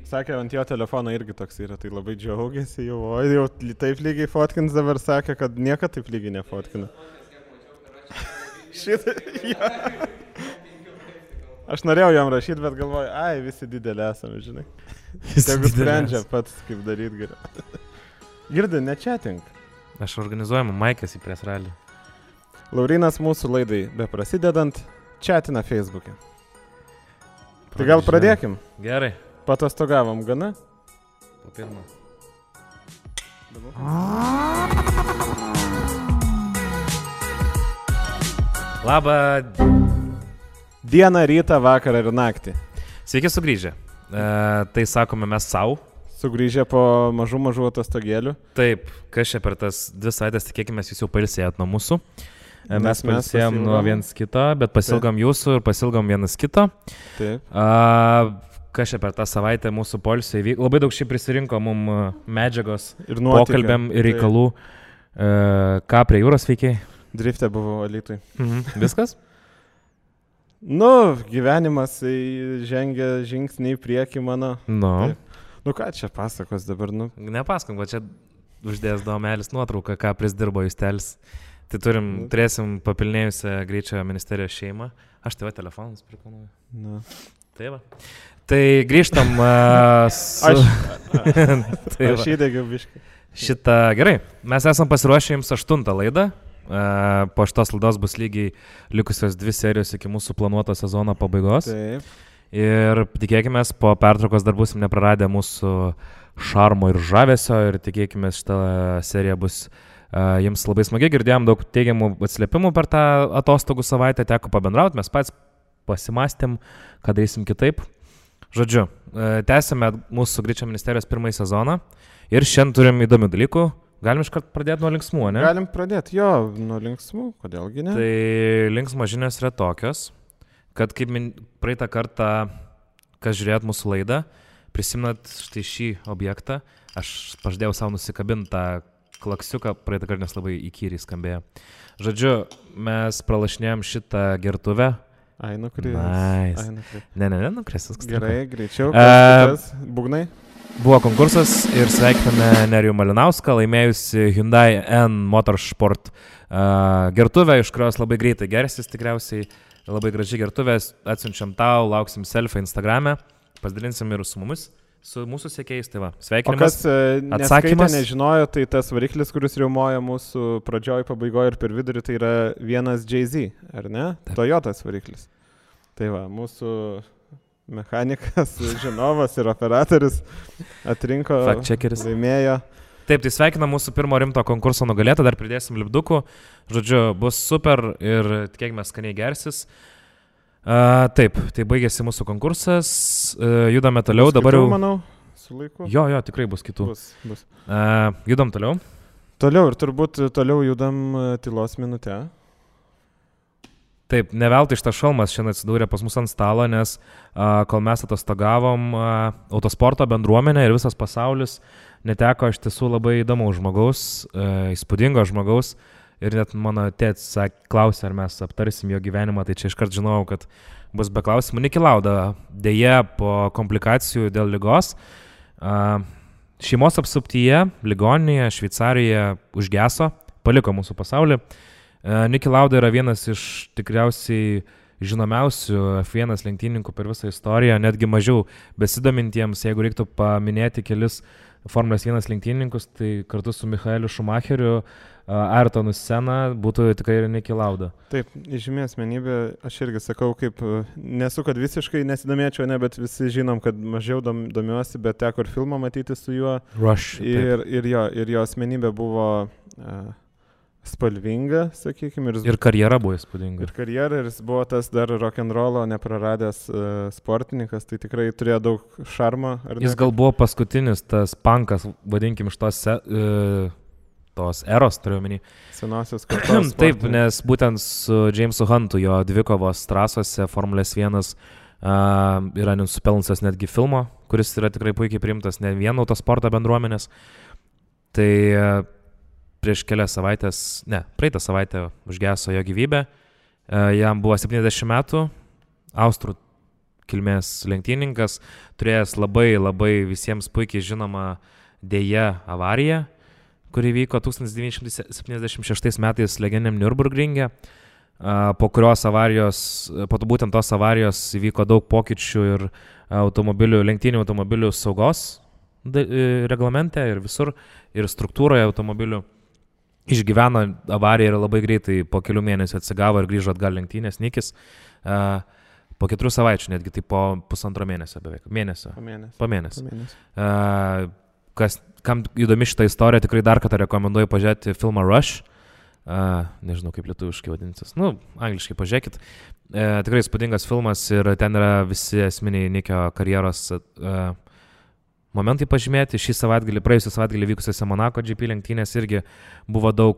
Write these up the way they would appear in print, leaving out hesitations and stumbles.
Sakė, ant jo telefono irgi toks yra, tai labai džiaugiasi jau, o jau taip lygiai fotkins dabar sakė, kad niekada taip lygiai nefotkina. Šitą, ja. Aš norėjau jam rašyti, bet galvoju, visi didelį esame, žinai. Tegu sprendžia pats, kaip daryti geriau. Girdi, nečetink. Aš organizuojamu Maikas į pres ralį. Laurynas mūsų laidai beprasidedant četina Facebook'e. Tai gal pradėkim? Gerai. Patostogavom gana? Po pirmą. Labą dieną, rytą, vakarą ir naktį. Sveiki sugrįžę. Tai sakome mes savo. Sugrįžę po mažų atostogėlių. Taip, kas čia per tas 2 savaitės, tikėkime, jūs jau pailsėjot nuo mūsų. Mes pailsėjom nuo viens kito, bet pasilgom jūsų ir pasilgom vienas kito. Taip. Kas čia per tą savaitę mūsų poilsio įvyko. Labai daug šiaip prisirinko mum medžiagos ir nuotykio, pokalbiam ir reikalų. Ką prie jūros veikiai? Driftė buvo Alytui. Viskas? Gyvenimas žengia žingsnį į priekį mano. Ką čia pasakos dabar, Nepasakom, kad čia uždės domelis nuotrauką, ką prisdirbo Justelis. Tai turėsim papilnėjusią greičio ministerijos šeimą. Aš tave telefonus prikonuoju. Tai va. Tai grįžtam Aš įdegiau biškai. Gerai, mes esam pasiruošę jums 8 laidą. Po šitos laidos bus lygiai likusios 2 serijos iki mūsų planuoto sezono pabaigos. Taip. Ir tikėkime, po pertraukos dar busim nepraradę mūsų šarmo ir žavesio ir tikėkime, šitą seriją bus jums labai smagi. Girdėjom daug teigiamų atsiliepimų per tą atostogų savaitę, teko pabendrauti, mes pats pasimastėm, ką darysim kitaip. Žodžiu, tęsime mūsų greičio ministerijos 1 sezoną ir šiandien turim įdomių dalykų. Galim iškart pradėti nuo linksmų, ne? Galim pradėti, nuo linksmų, kodėlgi ne? Tai linksmos žinios yra tokios, kad kaip praeitą kartą, kas žiūrėjot mūsų laidą, prisimenat štai šį objektą, aš pažadėjau savo nusikabinti tą klaksiuką, praeitą kartą, nes labai įkyriai skambėjo. Žodžiu, mes pralašinėjom šitą gertuvę. Nukris. Nice. Ne, nukris. Gerai, greičiau. Būgnai. Buvo konkursas ir sveikiname Nerijų Malinauską, laimėjusi Hyundai N Motorsport gertuvę, iš kurios labai greitai gersis tikriausiai. Labai graži gertuvė, atsiunčiam tau, lauksim selfie Instagrame, pasidalinsim ir su mumis. Su mūsų sekėjais, tai va, sveikinimas. O kas neskaitė, nežinojo, tai tas variklis, kuris riaumoja mūsų pradžioj, pabaigoje ir per vidurį, tai yra vienas JZ, ar ne? Taip. Toyotas variklis. Tai va, mūsų mechanikas, žinovas ir operatorius atrinko, laimėjo. Taip, tai sveikina mūsų pirmo rimto konkurso nugalėtą, dar pridėsim lipdukų. Žodžiu, bus super ir tikėkime skaniai gersis. Taip, tai baigėsi mūsų konkursas, judame toliau, dabar jau... manau, su laiku. Jo, tikrai bus kitų. Bus. Judam toliau. Toliau ir turbūt toliau judam tylos minutę. Taip, ne veltui šitas šalmas šiandien atsidūrė pas mus ant stalo, nes kol mes atostogavom, autosporto bendruomenė ir visas pasaulis neteko iš tiesų labai įdomaus žmogaus, įspūdingo žmogaus. Ir net mano tėtis klausė, ar mes aptarsim jo gyvenimą, tai čia iškart žinojau, kad bus be klausimų. Niki Lauda dėja po komplikacijų dėl ligos. Šeimos apsuptyje, ligoninėje, Šveicarijoje užgeso, paliko mūsų pasaulį. Niki Lauda yra vienas iš tikriausiai žinomiausių F1 lenktynininkų per visą istoriją, netgi mažiau besidomintiems, jeigu reiktų paminėti kelis Formulės 1 lenktynininkus, tai kartu su Michaeliu Schumacheriu, Ayrtonu Senna būtų tikrai ir Niki Lauda. Taip, žymi asmenybė, aš irgi sakau, kaip nesu, kad visiškai nesidomėčiau, bet visi žinom, kad mažiau domiuosi, bet teko ir filmą matyti su juo. Rush. Ir jo asmenybė buvo spalvinga, sakykime. Ir karjera buvo įspūdinga. Ir jis buvo tas dar rock'n'rollo nepraradęs sportininkas, tai tikrai turėjo daug šarmo. Jis gal buvo paskutinis tas punkas, vadinkim, iš tos eros, turiu omeny. Senosios kartos. Taip, nes būtent su Jamesu Huntu jo dvikovos trasose Formulės 1 yra nusipelnusios netgi filmo, kuris yra tikrai puikiai priimtas ne vien autosporto bendruomenės. Tai prieš kelias savaitės, praeitą savaitę užgeso jo gyvybė. Jam buvo 70 metų, austrų kilmės lenktyninkas, turėjęs labai visiems puikiai žinoma dėja avariją, kuri vyko 1976 metais legendiniam Nürburgringe. Po būtent tos avarijos įvyko daug pokyčių ir lenktynių automobilių saugos reglamente ir visur, ir struktūroje automobilių. Išgyveno avariją ir labai greitai po kelių mėnesių atsigavo ir grįžo atgal lenktynės Nikis. Po 4 savaičių, netgi tai po 1,5 mėnesio beveik. Po mėnesio. Kam įdomi šitą istoriją, tikrai dar kartą rekomenduoju pažiūrėti filmą Rush. Nežinau, kaip lietuviškai vadinsis. Angliškai pažiūrėkit. Tikrai įspūdingas filmas ir ten yra visi esminiai Nikio karjeros momentai pažymėti. Praėjusią savaitgalį vykusiose Monako GP lenktynės irgi buvo daug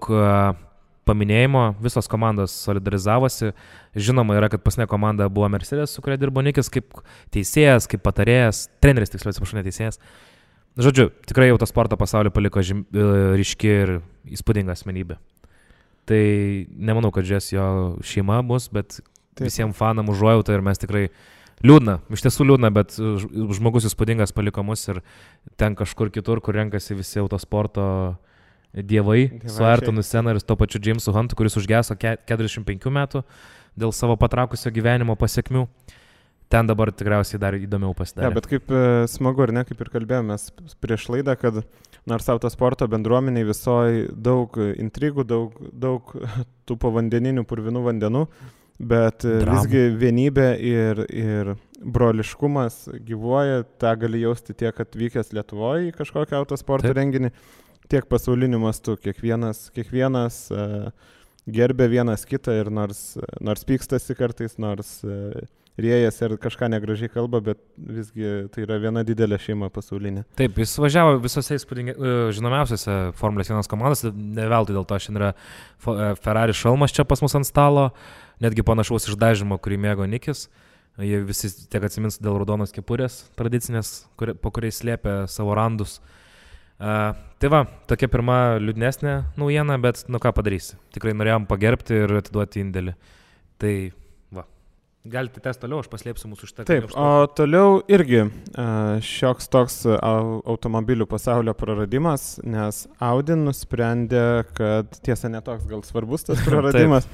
paminėjimo, visos komandos solidarizavosi. Žinoma yra, kad paskutinė komanda buvo Mercedes, su kuria dirbo Nikis kaip teisėjas, kaip patarėjas, treneris, tiksliau atsiprašau, ne teisėjas. Žodžiu, tikrai autosporto pasaulį paliko ryški ir įspūdinga asmenybė. Tai nemanau, kad žies jo šeima bus, bet visiems fanam užuojauta ir mes tikrai iš tiesų liūdna, bet žmogus įspūdingas paliko mus ir ten kažkur kitur, kur renkasi visi autosporto dievai su Ayrtonu Senna ir to pačiu Jamesu Huntu, kuris užgeso 45 metų dėl savo patraukusio gyvenimo pasiekmių. Ten dabar tikriausiai dar įdomiau pasidarė. Bet kaip smagu, ar ne, kaip ir kalbėjomės prieš laidą, kad nors autosporto bendruomeniai visoji daug intrigų, daug tų povandeninių purvinų vandenų, bet visgi vienybė ir broliškumas gyvuoja, tą gali jausti tiek atvykęs Lietuvoje į kažkokią autosporto renginį, tiek pasauliniu mastu. Kiekvienas gerbė vienas kitą ir nors pykstasi kartais, nors rėjas ir kažką negražiai kalba, bet visgi tai yra viena didelė šeima pasaulinė. Taip, jis važiavo visose žinomiausiose Formulės 1 komandose, ne veltui dėl to šiandien yra Ferrari šalmas čia pas mus ant stalo, netgi panašaus išdažymo, kurį mėgo Nikis. Jie visi tiek atsimins dėl raudonos kepurės tradicinės, po kuriais slėpė savo randus. Tai va, tokia pirma liūdnesnė naujiena, bet ką padarysi. Tikrai norėjom pagerbti ir atiduoti indėlį. Tai va, galite tęsti toliau, aš paslėpsiu mūsų šitą. Taip, o toliau irgi šioks toks automobilių pasaulio praradimas, nes Audi nusprendė, kad tiesa netoks gal svarbus tas praradimas.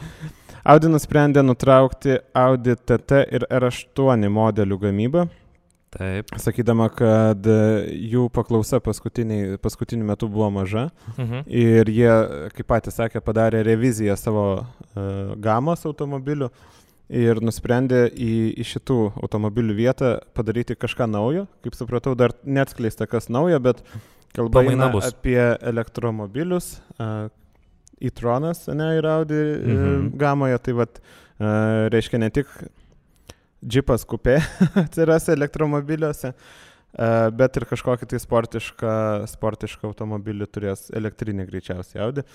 Audi nusprendė nutraukti Audi TT ir R8 modelių gamybą. Taip. Sakydama, kad jų paklausa paskutiniu metu buvo maža ir jie, kaip patys sakė, padarė reviziją savo gamos automobilių ir nusprendė į šitų automobilių vietą padaryti kažką naujo. Kaip supratau, dar neatskleista kas naujo, bet kalba eina apie elektromobilius. E-tronas, ir Audi gamoje, tai vat, reiškia ne tik džipas kupė atsiras elektromobiliuose, bet ir kažkokį tai sportišką automobilį turės elektrinį greičiausiai Audi.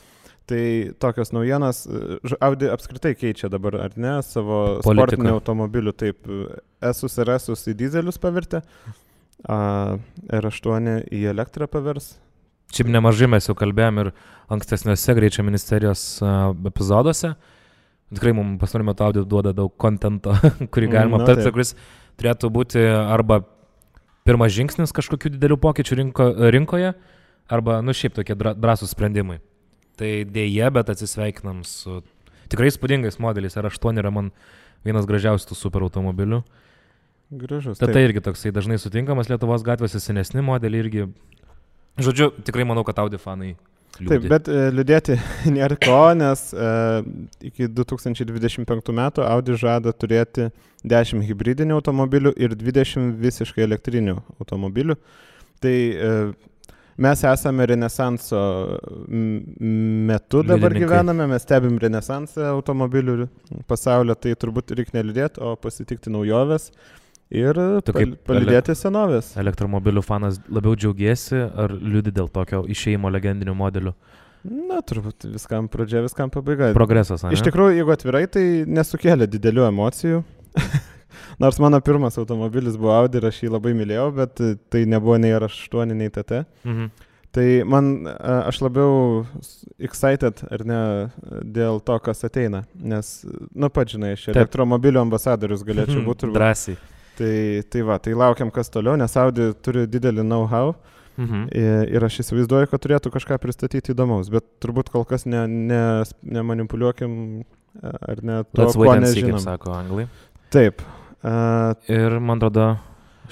Tai tokios naujienos, Audi apskritai keičia dabar, ar ne, savo sportinių automobilių, taip, S-us ir S-us į dizelius pavirtė, R8 į elektrą pavers. Šiaip nemažai mes jau kalbėjom ir ankstesniuose greičio ministerijos epizoduose. Tikrai mums pastaruoju metu Audi duoda daug kontento, kurį galima aptarti, kuris turėtų būti arba pirmas žingsnis kažkokių didelių pokyčių rinkoje, arba, šiaip tokie drąsūs sprendimai. Tai dėja, bet atsisveikinam su tikrai įspūdingais modeliais. R8 yra man vienas gražiausių super automobilių. Gražus. Tai irgi toksai dažnai sutinkamas Lietuvos gatvėse, senesni modeliai irgi. Žodžiu, tikrai manau, kad Audi fanai liūdė. Taip, bet liūdėti nėra ko, nes iki 2025 metų Audi žada turėti 10 hibridinių automobilių ir 20 visiškai elektrinių automobilių. Tai mes esame renesanso metu dabar gyvename, mes stebim renesansą automobilių pasaulio, tai turbūt reikia neliūdėti, o pasitikti naujoves. Ir palydėti senovės. Elektromobilių fanas labiau džiaugiesi ar liūdi dėl tokio išėjimo legendinių modelių? Na, turbūt viskam pradžia, viskam pabaiga. Progresas, ne? Iš tikrųjų, jeigu atvirai, tai nesukėlė didelių emocijų. Nors mano pirmas automobilis buvo Audi ir aš jį labai mylėjau, bet tai nebuvo nei R8, nei TT. Tai aš labiau excited, ar ne, dėl to, kas ateina. Nes, pats žinai, aš elektromobilių ambasadorius galėčiau būti. Drąsiai. Tai laukiam kas toliau, nes Audi turi didelį know-how. Ir aš įsivaizduoju, kad turėtų kažką pristatyti įdomaus, bet turbūt kol kas nemanipuliuokim ar ne to, ko nežinom. Kaip sako anglai. Taip. Ir man atrodo,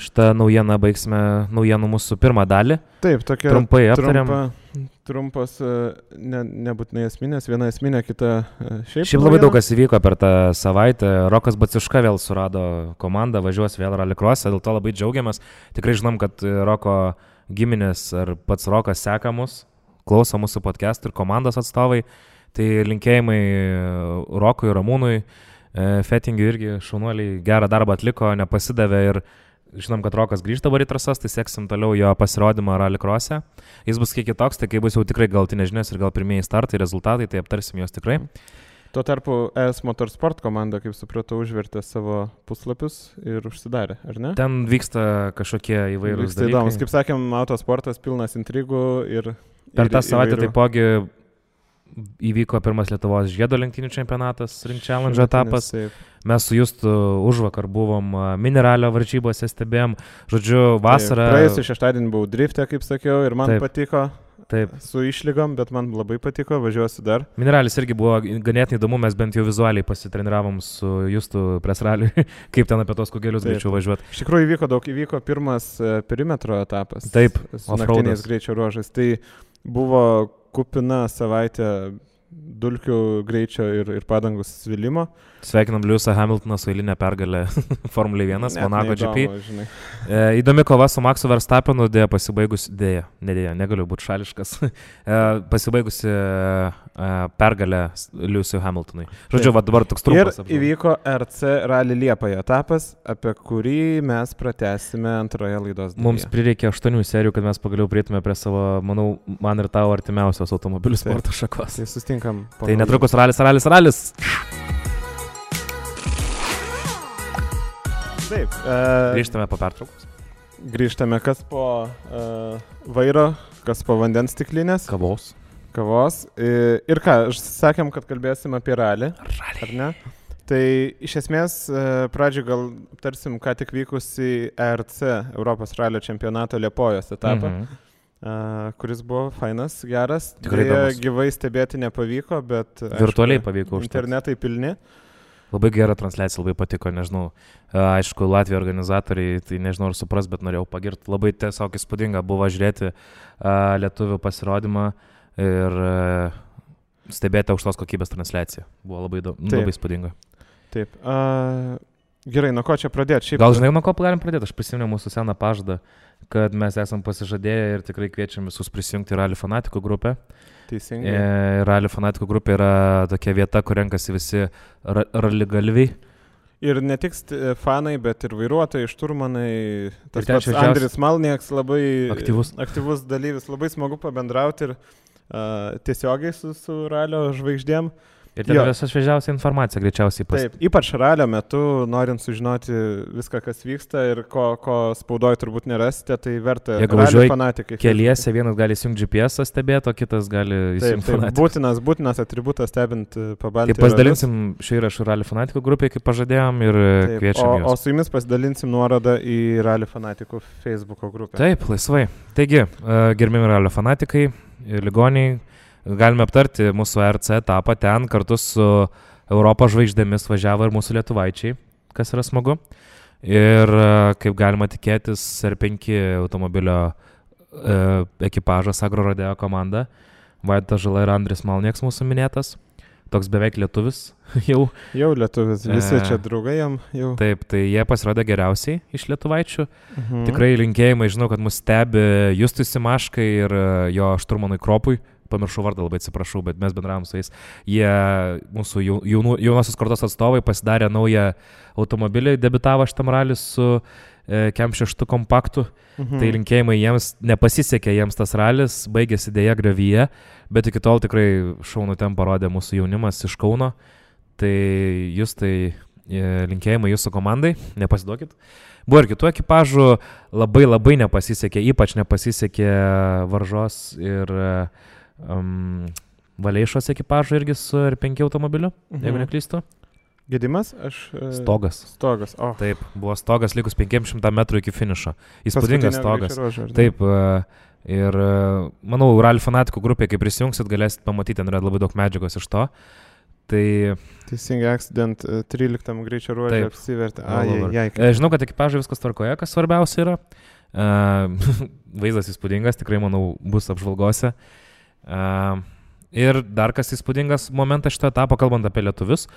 šitą naujieną baigsime naujienų mūsų pirmą dalį. Taip, tokia trumpai aptariam. Trumpas, nebūtinai esminės, viena esminė, kita Šiaip labai daug kas įvyko per tą savaitę. Rokas Baciuška vėl surado komandą, važiuos vėl rallycross'e, dėl to labai džiaugiamės. Tikrai žinom, kad Roko giminės ar pats Rokas seka mus, klauso mūsų podcastų ir komandos atstovai. Tai linkėjimai Rokui, Ramūnui, Fettingiui irgi šaunuoliai gerą darbą atliko, nepasidavė ir žinom, kad Rokas grįžta dabar į trasas, tai seksim toliau jo pasirodymą rallycross'e. Jis bus kiek kitoks, tai kai bus jau tikrai galtinės žinios ir gal pirmieji startai, rezultatai, tai aptarsim juos tikrai. Tuo tarpu ES Motorsport komanda, kaip supratau, užvertė savo puslapius ir užsidarė, ar ne? Ten vyksta kažkokie įvairūs dalykai. Įdomus, kaip sakėm, autosportas pilnas intrigų ir per tą savaitę taipogi įvyko pirmas Lietuvos žiedo lenktynių čempionatas, Ring Challenge etapas. Mes su Justu užvakar buvom Mineralio varžybose, stebėjom. Žodžiu, vasarą... Praėjusį šeštadienį buvau drifte, kaip sakiau, ir man patiko. Taip. Su išlygom, bet man labai patiko, važiuosiu dar. Mineralis irgi buvo ganėtinai įdomu, mes bent jau vizualiai pasitreniravom su Justu pres raliui, kaip ten apie tos kugelius greičiau važiuoti. Iš tikrųjų įvyko pirmas perimetro etapas. Taip, su naktiniais greičio ruožais. Tai buvo kupina savaitė dulkių greičio ir padangų svilimo. Sveikinam Lewisą Hamiltoną su eilinė pergalė Formulė 1, Monaco GP. Įdomi kova su Maxu Verstappenu, negaliu būti šališkas, pasibaigusi pergalė Lewisui Hamiltonui. Žodžiu, dabar toks trumpas. Ir įvyko RC Rally Liepoje etapas, apie kurį mes pratęsime antroje laidos dalyje. Mums prireikė 8 serijų, kad mes pagaliau prieitume prie savo, manau, man ir tavo artimiausios automobilių sporto šakos. Tai sustinkam. Tai netrukus ralis. Taip. Grįžtame po pertraukos. Grįžtame kas po vairo, kas po vandens stiklinės. Kavos. Ir ką, sakėm, kad kalbėsim apie ralį. Ar ne? Tai iš esmės pradžioj gal tarsim, ką tik vykusi ERC, Europos ralio čempionato Liepojos etapą, kuris buvo fainas, geras. Tikrai gyvai stebėti nepavyko, bet virtualiai pavyko užtat. Internetai pilni. Labai gera transliacija, labai patiko, nežinau, aišku, Latvijos organizatoriai, tai nežinau ar supras, bet norėjau pagirti, labai tiesiog įspūdinga buvo žiūrėti lietuvių pasirodymą ir stebėti aukštos kokybės transliaciją, buvo labai įspūdinga. Taip, gerai, nuo ko čia pradėti? Gal žinai, nuo ko galim pradėti, aš prisimenu mūsų seną pažadą, kad mes esam pasižadėję ir tikrai kviečiam visus prisijungti į Rally Fanatikų grupę. Teisingai. Rally Fanatikų grupė yra tokia vieta, kur renkasi visi raligalviai. Ir ne tik fanai, bet ir vairuotojai, šturmanai. Tas pats Andris Malnieks labai aktyvus dalyvis. Labai smagu pabendrauti ir tiesiogiai su ralio žvaigždėm. Ir ten visą šviežiausią informaciją greičiausiai Taip, ypač ralio metu, norint sužinoti viską, kas vyksta ir ko spaudoje turbūt nerasite, tai verta ralio fanatikai. Keliese vienas gali įsijungti GPS stebėti, o kitas gali įsijungti fanatikus. Būtinas atributas stebint Pabaltijos. Tai pasidalinsim šį įrašą Rally Fanatikų grupėje, kaip pažadėjom, ir kviečiam juos. O su jumis pasidalinsim nuorodą į Rally Fanatikų Facebooko grupę. Taip, laisvai. Taigi, gerbimi Rally Fanatikai, ligoniai, galime aptarti mūsų RC etapą, ten kartu su Europos žvaigždėmis važiavo ir mūsų lietuvaičiai, kas yra smagu. Ir kaip galima tikėtis, R5 automobilio ekipažas Agro Rodeo komanda, Vaidotas Žala ir Andris Malnieks mūsų minėtas, toks beveik lietuvis jau. Jau lietuvis, visi čia draugai jam jau. Taip, tai jie pasirodė geriausiai iš lietuvaičių. Tikrai linkėjimai, žinau, kad mus stebi Justui Simaškai ir jo šturmanui Kropui. Pamiršau vardą, labai atsiprašau, bet mes bendravom su jais. Jie, mūsų jaunosios kartos atstovai, pasidarė naują automobilį, debitavo šitam rally su Kem 6 kompaktu. Tai linkėjimai jiems, nepasisekė jiems tas ralis, baigėsi dėja griovyje, bet iki tol tikrai šaunų ten parodė mūsų jaunimas iš Kauno. Tai jūs linkėjimai jūsų komandai, nepasiduokit. Buvo ir kitų ekipažų, labai nepasisekė, ypač nepasisekė Varžos ir Valeišos ekipažų irgi su R5 automobiliu, jeigu neklystu. Gedimas? Stogas. Stogas, Taip, buvo stogas likus 500 metrų iki finišo. Įspūdingas stogas. Taip, ir manau, Rally fanatikų grupė, kai prisijungsit, galėsit pamatyti, ten yra labai daug medžiagos iš to. Tai... Teisingai, accident 13 greičio ruožė apsivertė. Žinau, kad ekipažai viskas tvarkoje, kas svarbiausia yra. Vaizdas įspūdingas, tikrai, manau, bus apžvalgose. Ir dar kas įspūdingas momentas šito etapo, kalbant apie lietuvius,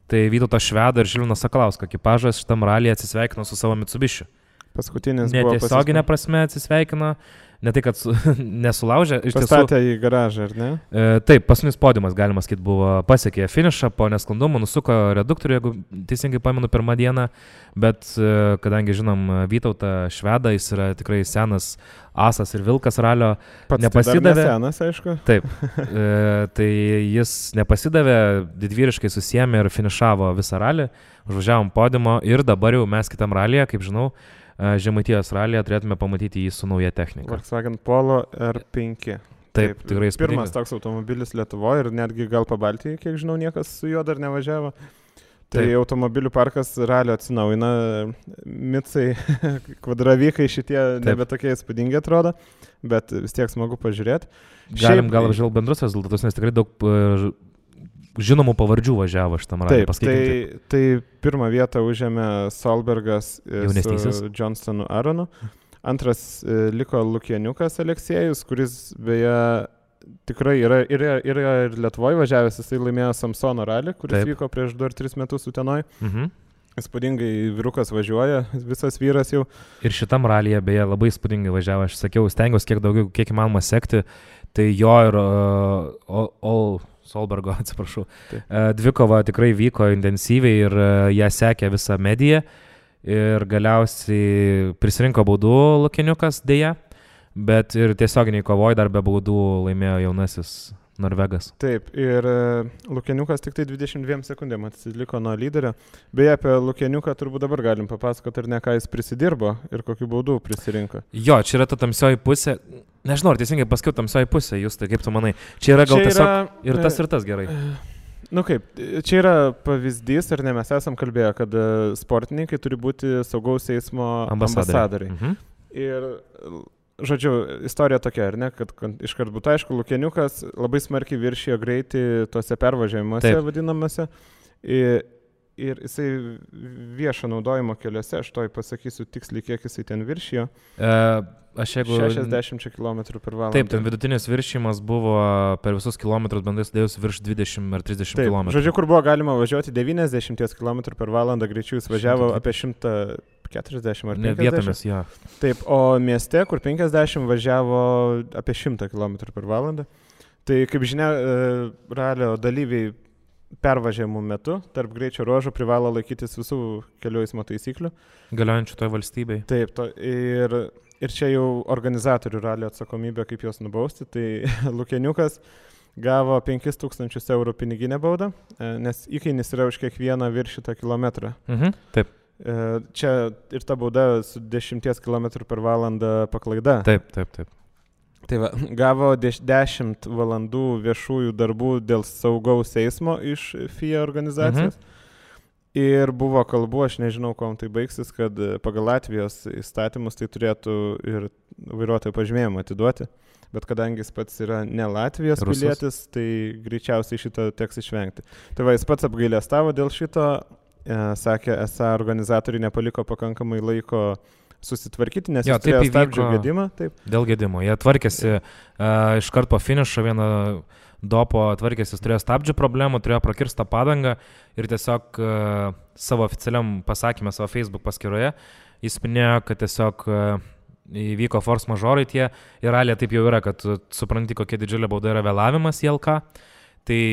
tai Vytauto Švedo ir Žilvinas Sakalauskas ekipažas šitam ralyje atsisveikino su savo Mitsubishi. Paskutinis netiesioginė prasme atsisveikino, ne tai, kad nesulaužė. Pastatė į garažą, ar ne? Taip, paskutinis podiumas, galima sakyti, buvo pasiekė finišą, po nesklandumų nusuko reduktorių, jeigu teisingai pamenu, pirmą dieną, bet kadangi žinom Vytautą Švedą, jis yra tikrai senas asas ir vilkas ralio, nepasidavė. Tai senas, aišku. Taip, tai jis nepasidavė, didvyriškai susiėmė ir finišavo visą ralį, užvažiavom podiumo ir dabar jau mes kitam ralyje, kaip žinau, Žemaitijos ralyje turėtume pamatyti jį su nauja technika. Volkswagen Polo R5. Taip, tikrai įspūdingas. Pirmas toks automobilis Lietuvoje ir netgi gal Pabaltijoje, kiek žinau, niekas su juo dar nevažiavo. Tai taip. Automobilių parkas ralio atsinaujina, Mitsai, kvadravykai šitie nebe tokie įspūdingi atrodo, bet vis tiek smagu pažiūrėti. Galim gal apžvelgti bendrus rezultatus, nes tikrai daug žinomų pavardžių važiavo šitam ralį. Taip, tai pirmą vietą užėmė Solbergas su Johnstonu Aronu. Antras liko Lukieniukas Aleksėjus, kuris beje tikrai yra ir Lietuvoje važiavęs, jisai laimėjo Samsono ralį, kuris vyko prieš 2 ar 3 metus Utenoj. Įspūdingai vyrukas važiuoja, visas vyras jau. Ir šitam ralyje beje labai įspūdingai važiavo, aš sakiau, stengiausi kiek įmanoma sekti, tai jo ir Solbergo, atsiprašau. Dvikova tikrai vyko intensyviai ir ją sekė visą mediją ir galiausiai prisirinko baudų Lukieniukas dėja, bet ir tiesioginiai kovoj dar be baudų laimėjo jaunasis Norvegas. Taip, ir Lukieniukas tik tai 22 sekundėm atsiliko nuo lyderio. Beje, apie Lukieniuką turbūt dabar galim papasakoti, ar ne, ką jis prisidirbo ir kokių baudų prisirinko. Jo, čia yra ta tamsioji pusė. Nežinau, ar teisingai pasakiau tamsioji pusė, jūs tai kaip tu manai. Čia yra gal tiesiog ir tas gerai. Nu kaip, čia yra pavyzdys, ar ne, mes esam kalbėję, kad sportininkai turi būti saugaus eismo ambasadoriai. Ir žodžiu, istorija tokia, ar ne, kad iškart būtų aišku, Lukieniukas labai smarkiai viršijo greitį tuose pervažiavimuose vadinamose ir jisai viešo naudojimo keliuose, aš toj pasakysiu tiksliai, kiek jisai ten viršijo. 60 km/h. Taip, ten vidutinis viršijimas buvo per visus kilometrus bendrai sudėjus virš 20 ar 30 km. Žodžiu, kur buvo galima važiuoti 90 km/h greičiu, jis važiavo apie 140 ar 50. Vietomis, jo. Taip, o mieste, kur 50 važiavo apie 100 km/h. Tai kaip žinia, ralio dalyviai pervažiavimų metu tarp greičio ruožų privalo laikytis visų kelių eismo taisyklių. Galiojančių toje valstybėje. Taip, ir čia jau organizatorių ralio atsakomybė, kaip juos nubausti. Tai Lukieniukas gavo 5000 eurų piniginę baudą, nes įkainis yra už kiekvieną viršytą kilometrą. Taip. Čia ir ta bauda su 10 km/h paklaida. Taip. Tai va, gavo 10 valandų viešųjų darbų dėl saugaus eismo iš FIA organizacijos. Ir buvo kalbų, aš nežinau, kuom tai baigsis, kad pagal Latvijos įstatymus tai turėtų ir vairuotojo pažymėjimą atiduoti. Bet kadangi jis pats yra ne Latvijos pilietis, tai greičiausiai šito teks išvengti. Tai va, jis pats apgailestavo dėl šito, sakė, esą organizatoriai nepaliko pakankamai laiko susitvarkyti, nes jis turėjo stabdžių gedimą. Taip. Dėl gedimo. Jie tvarkėsi iš karto po finišo vieną dopo tvarkėsi, turėjo stabdžių problemų, turėjo prakirstą padangą ir tiesiog savo oficialiam pasakymę savo Facebook paskyroje jis minėjo, kad tiesiog įvyko force majorai tie ir ralė taip jau yra, kad supranti, kokia didžiulė bauda yra vėlavimas į LK, tai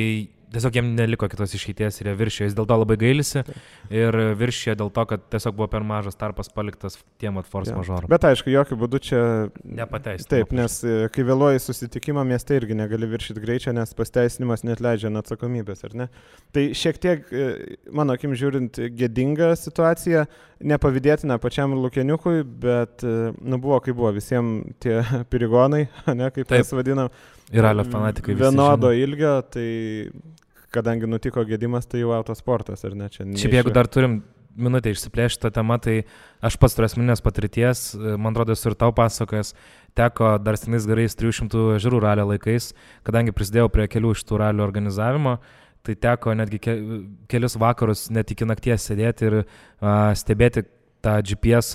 tiesiog jiem neliko kitos išeities ir jie viršijo, jis dėl to labai gailisi ir viršijo dėl to, kad tiesiog buvo per mažas tarpas paliktas tiem force majoram. Bet aišku, jokių būdų čia nepateisinimas. Taip, nes kai vėluoji susitikimą mieste irgi negali viršyti greičio, nes pasteisinimas neatleidžia nuo atsakomybės, ar ne? Tai šiek tiek, mano akim žiūrint, gėdinga situacija, nepavydėtina pačiam Lukieniukui, bet buvo kaip buvo, visiems tie pirigonai, ne, kaip mes vadinam, ir ralio fanatikai vienodo ilgio, tai kadangi nutiko gedimas, tai jau autosportas, ar ne? Šiaip jeigu dar turim minutę išsiplėšti tą temą, tai aš pats turiu asmeninės patirties, man atrodo, esu ir tau pasakojęs, teko dar senais gerais 300 ežerų ralio laikais, kadangi prisidėjau prie kelių iš tų ralio organizavimo, tai teko netgi kelius vakarus net iki nakties sėdėti ir stebėti tą GPS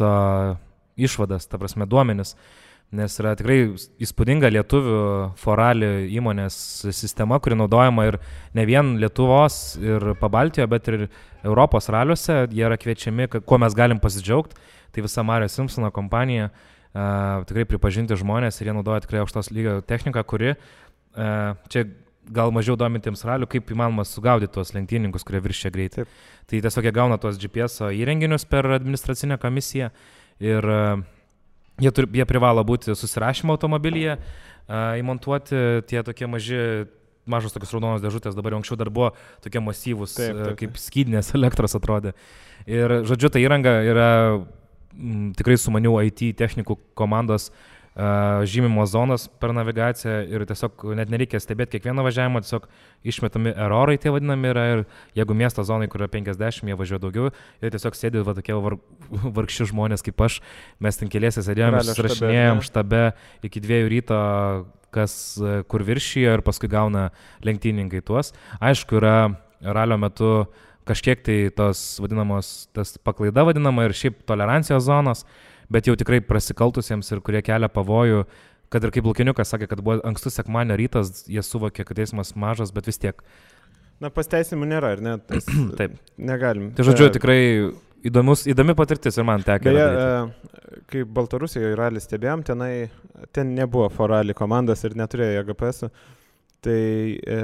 išvadas, ta prasme duomenis, nes yra tikrai įspūdinga lietuvių forali įmonės sistema, kuri naudojama ir ne vien Lietuvos ir Pabaltijoje, bet ir Europos raliuose, jie yra kviečiami, kuo mes galim pasidžiaugti, tai visa Mario Simpsono kompanija, tikrai pripažinti žmonės ir jie naudoja tikrai aukštos lygio techniką, kuri čia gal mažiau domintiems ralių, kaip įmanoma sugaudyti tuos lenktyninkus, kurie viršia greitį. Tai tiesiog jie gauna tuos GPS įrenginius per administracinę komisiją ir jie privalo būti susirašymo automobilyje, įmontuoti tie tokie mažos tokios raudonos dėžutės, dabar anksčiau dar buvo tokie masyvūs, kaip skydinės elektros atrodė. Ir žodžiu, ta įranga yra tikrai sumanių IT technikų komandos žymimo zonas per navigaciją ir tiesiog net nereikia stebėti kiekvieną važiavimą, tiesiog išmetami erorai tie vadinami yra ir jeigu miesto zonai, kur yra 50, jie važiuoja daugiau ir tiesiog sėdi tokie vargši žmonės kaip aš, mes ten keliese sėdėjome, susirašinėjom štabe iki 2 ryto, kas kur viršijo ir paskui gauna lenktyninkai tuos. Aišku, yra ralio metu kažkiek tai tas paklaida vadinama ir šiaip tolerancijos zonos, bet jau tikrai prasikaltusiems ir kurie kelia pavojų, kad ir kaip Lukiniukas sakė, kad buvo ankstus sekmadienio rytas, jie suvokė, kad eismas mažas, bet vis tiek. Na, pasteisimų nėra, ar ne? Taip. Negalim. Tai žodžiu, tikrai įdomi patirtis ir man tekė. Beje, kai Baltarusijoje ralį stebėjom, ten nebuvo forali komandos ir neturėjo GPS-ų, tai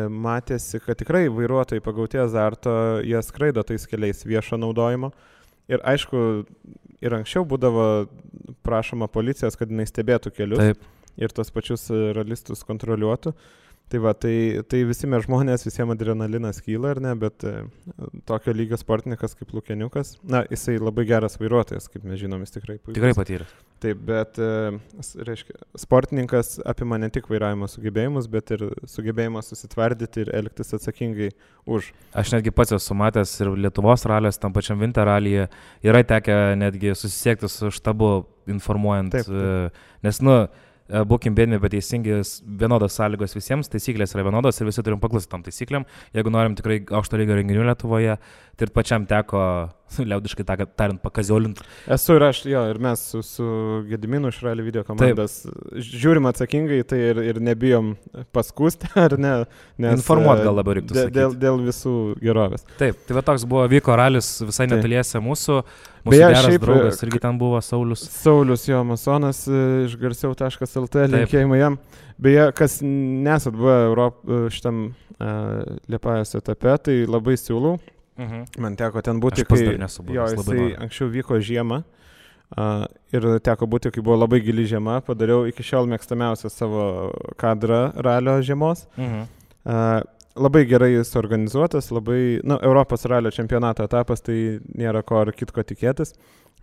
matėsi, kad tikrai vairuotojai pagauti azarto, jie skraido tais keliais viešo naudojimo. Ir aišku, ir anksčiau būdavo prašoma policijos, kad jinai stebėtų kelius. Taip. Ir tos pačius ralistus kontroliuotų. Tai va, tai visi mes žmonės, visiems adrenalinas kyla, ar ne, bet tokio lygio sportininkas kaip Lukeniukas, na, jisai labai geras vairuotojas, kaip mes žinom, jis tikrai puikus. Tikrai patyręs. Taip, bet, reiškia, sportininkas apima ne tik vairavimo sugebėjimus, bet ir sugebėjimą susitvardyti ir elgtis atsakingai už. Aš netgi pats esu matęs ir Lietuvos ralės, tam pačiam Winter ralyje, yra tekę netgi susisiekti su štabu informuojant, taip. Nes, būkim bėdini, bet teisingi, vienodos sąlygos visiems, taisyklės yra vienodos ir visi turim paklausti tom taisyklėm. Jeigu norim tikrai aukšto lygio renginių Lietuvoje, tai ir pačiam teko, liaudiškai tariant, pakaziolinti. Esu ir aš, ir mes su Gediminu iš Rally video komandos žiūrim atsakingai, tai ir nebijom paskūsti, ar ne? Informuot gal labiau reiktų sakyti. Dėl visų gerovės. Taip, tai va toks buvo, vyko ralis visai netoliese mūsų geras draugas irgi ten buvo Saulius. Saulius, jo, masonas iš garsiau.lt, linkėjimai jam. Beje, kas nesat buvę šitam Liepajos etape, tai labai siūlau. Man teko ten būti, jisai anksčiau vyko žiemą ir teko būti, kai buvo labai gili žiema, padariau iki šiol mėgstamiausią savo kadrą ralio žiemos. Labai gerai jis organizuotas, Europos ralio čempionato etapas, tai nėra ko ar kitko tikėtis.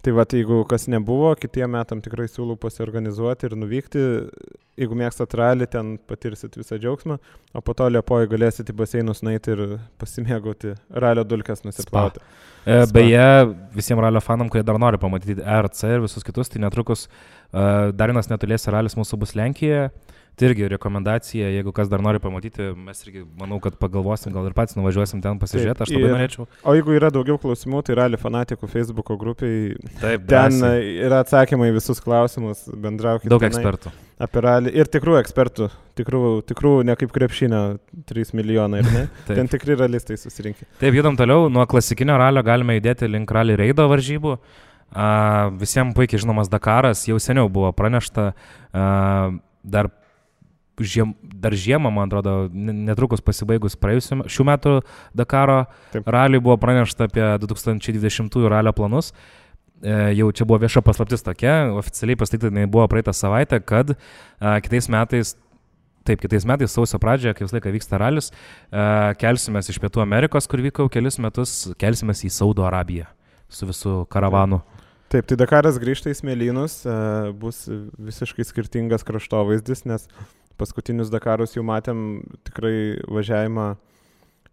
Tai va, jeigu kas nebuvo, kitiem metam tikrai siūlau pasiorganizuoti ir nuvykti. Jeigu mėgstat ralį, ten patirsit visą džiaugsmą, o po to Liepoje galėsit į baseinus nueiti ir pasimėgauti ralio dulkes nusiplauti. Beje, visiems ralio fanam, kurie dar nori pamatyti RC ir visus kitus, tai netrukus dar vienas netoliese ralis mūsų bus Lenkijoje. Tai irgi rekomendacija, jeigu kas dar nori pamatyti, mes irgi manau, kad pagalvosim, gal ir patys nuvažiuosim ten pasižiūrėti, aš labai norėčiau. O jeigu yra daugiau klausimų, tai Rally fanatikų Facebooko grupiai, taip, ten yra atsakymai visus klausimus, bendraukite. Daug ekspertų. Apie ralį ir tikrų ekspertų, tikrų ne kaip krepšinio 3 milijonai, ir ne? Ten tikri ralistai susirinkė. Taip, judam toliau, nuo klasikinio ralio galime judėti link rally reido varžybų. Visiems puikiai žinomas Dakaras, jau seniau buvo pranešta, dar žiemą, man atrodo, netrukus pasibaigus šių metų Dakaro raliui buvo pranešta apie 2020 ralio planus. Jau čia buvo vieša paslaptis tokia, oficialiai pasakyta buvo praeitą savaitę, kad kitais metais sausio pradžioje, kai visą laiką vyksta ralis, kelsimės iš Pietų Amerikos, kur vyko kelis metus, kelsimės į Saudo Arabiją su visų karavanu. Taip, tai Dakaras grįžta į Smėlynus, bus visiškai skirtingas kraštovaizdis, nes paskutinius Dakarus jau matėm tikrai važiavimą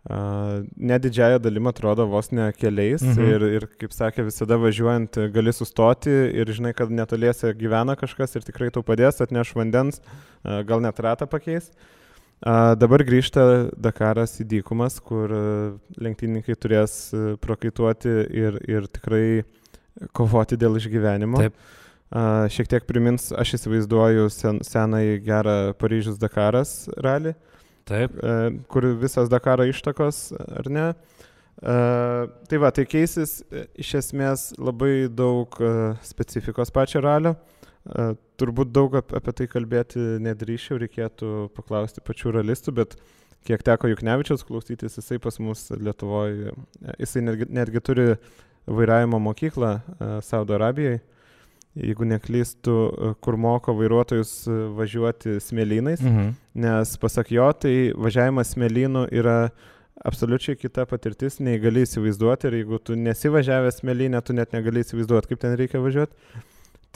ne didžiąją dalim atrodo vos ne keliais ir, kaip sakė, visada važiuojant gali sustoti ir žinai, kad netoliese gyvena kažkas ir tikrai tau padės, atneš vandens, gal net ratą pakeis. Dabar grįžta Dakaras į dykumas, kur lenktynininkai turės prakaituoti ir tikrai kovoti dėl išgyvenimo. Taip. Šiek tiek primins, aš įsivaizduoju senai gerą Paryžius Dakaras rally. Taip. Kur visas Dakaro ištakos, ar ne? Tai va, tai keisis iš esmės labai daug specifikos pačio ralio. Turbūt daug apie tai kalbėti nedrįšiau, reikėtų paklausti pačių ralistų, bet kiek teko Juknevičiaus klausytis, jisai pas mus Lietuvoje, jisai netgi turi vairavimo mokyklą Saudo Arabijai. Jeigu neklystu, kur moko vairuotojus važiuoti smėlynais, nes pasak jo, tai važiavimas smėlynu yra absoliučiai kita patirtis, nei gali įsivaizduoti ir jeigu tu nesivažiavęs smėlynę, tu net negali įsivaizduoti, kaip ten reikia važiuoti.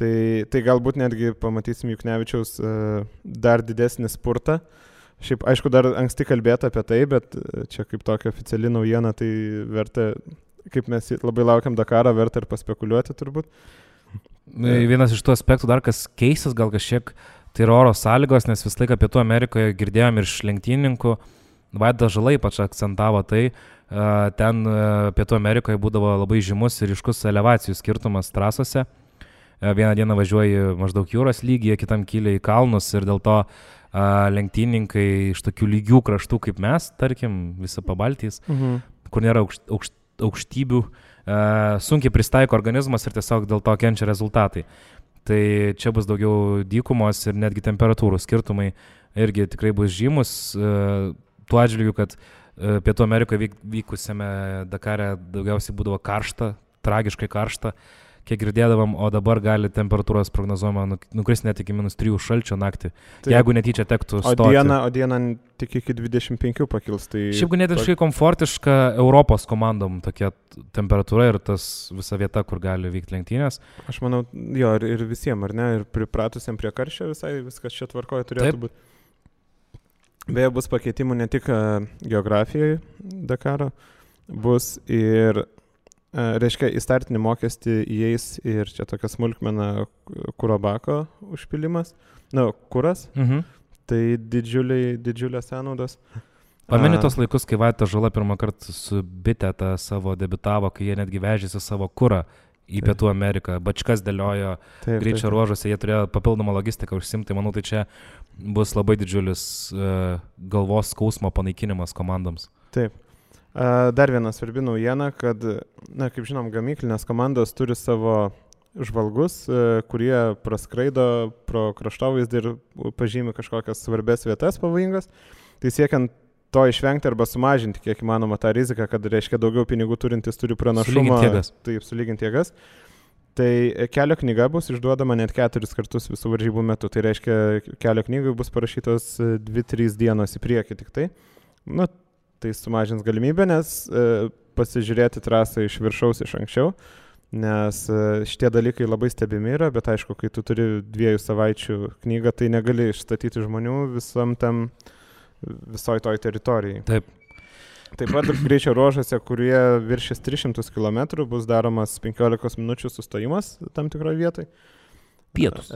Tai galbūt netgi pamatysim Juknevičiaus dar didesnį spurtą. Šiaip, aišku, dar anksti kalbėti apie tai, bet čia kaip tokia oficiali naujiena, tai verta, kaip mes labai laukiam Dakarą, verta ir paspekuliuoti turbūt. Vienas iš tų aspektų dar, kas keistas gal kažkiek, tai yra oro sąlygos, nes vis laiką Pietų Amerikoje girdėjom ir iš lenktynininkų, Vaidas Žala ypač akcentavo tai, ten Pietų Amerikoje būdavo labai žymus ir ryškus elevacijų skirtumas trasose. Vieną dieną važiuoji maždaug jūros lygyje, kitam kyli į kalnus ir dėl to lenktynininkai iš tokių lygių kraštų kaip mes, tarkim, visą Pabaltijs, kur nėra aukštybių, sunkiai pristaiko organizmas ir tiesiog dėl to kenčia rezultatai. Tai čia bus daugiau dykumos ir netgi temperatūrų skirtumai irgi tikrai bus žymus. Tuo atžvilgiu, kad Pietų Amerikoje vykusiame Dakare daugiausiai būdavo karšta, tragiškai karšta, kiek girdėdavom, o dabar gali temperatūros prognozuojama nukristi net iki -3 šalčio naktį, tai, jeigu netyčia tektų stoti. O dieną tik iki 25 pakils. Tai šiaip ganėtinai komfortiška Europos komandom tokia temperatūra ir tas visa vieta, kur gali vykti lenktynės. Aš manau, jo, ir visiems, ar ne, ir pripratusiam prie karščio visai viskas čia tvarkoje turėtų būti. Beje, bus pakeitimų ne tik geografijoje Dakaro, bus ir reiškia, į startinį mokestį įeis ir čia tokia smulkmena kuro bako užpilimas, kuras, tai didžiulės sąnaudos. Pameni tos laikus, kai Vaidas Žala pirmą kartą su Biteta savo debitavo, kai jie netgi vežėsi savo kurą į Pietų Ameriką, bačkas dėliojo greičio ruožuose, jie turėjo papildomą logistiką užsimti, manau, tai čia bus labai didžiulis galvos skausmo panaikinimas komandoms. Taip. Dar viena svarbi naujiena, kad, kaip žinom, gamyklinės komandos turi savo žvalgus, kurie praskraido pro kraštovaizdį ir pažymi kažkokias svarbės vietas pavojingas. Tai siekiant to išvengti arba sumažinti, kiek įmanoma, tą riziką, kad reiškia daugiau pinigų turintis turi pranašumą. Sulyginti jėgas. Tai kelio knyga bus išduodama net 4 kartus visų varžybų metu. Tai reiškia, kelio knygai bus parašytos 2-3 dienos į priekį tik tai. Tai sumažins galimybę, nes pasižiūrėti trasą iš viršaus iš anksčiau, nes šitie dalykai labai stebimi yra, bet aišku, kai tu turi 2 savaičių knygą, tai negali išstatyti žmonių visoj toj teritorijai. Taip. Taip pat greičio ruožuose, kurie viršės 300 km, bus daromas 15 minučių sustojimas tam tikroje vietoje. Pietus.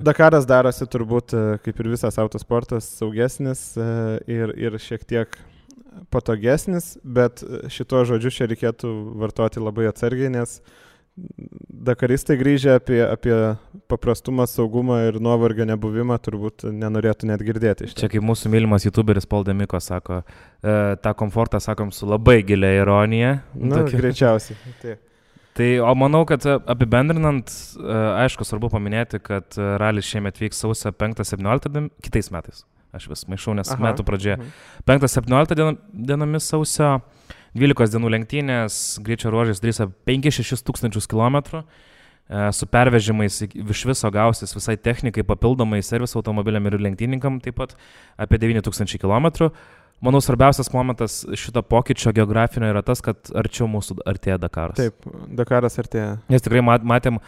Dakaras darosi turbūt, kaip ir visas autosportas, saugesnis ir šiek tiek patogesnis, bet šito žodžiu čia reikėtų vartoti labai atsargiai, nes dakaristai grįžę apie paprastumą, saugumą ir nuovargio nebuvimą turbūt nenorėtų net girdėti. Čia kaip mūsų mylimas youtuberis Paul Demiko sako, tą komfortą sakom su labai gilia ironija. Greičiausiai. Taip. Tai, o manau, kad apibendrinant, aišku, svarbu paminėti, kad ralis šiemet vyks sausio 5-17 kitais metais. Aš vis maišau, nes metų pradžioje. 5-17 dienomis sausio, 12 dienų lenktynės, greičio ruožais drįsa 5-6 tūkstančius kilometrų, su pervežimais iš viso gausis visai technikai, papildomai serviso automobiliam ir lenktynininkam taip pat apie 9 tūkstančių kilometrų. manau, svarbiausias momentas šito pokyčio geografinio yra tas, kad arčiau mūsų artėja Dakaras. Taip, Dakaras artėja. Nes tikrai matėm,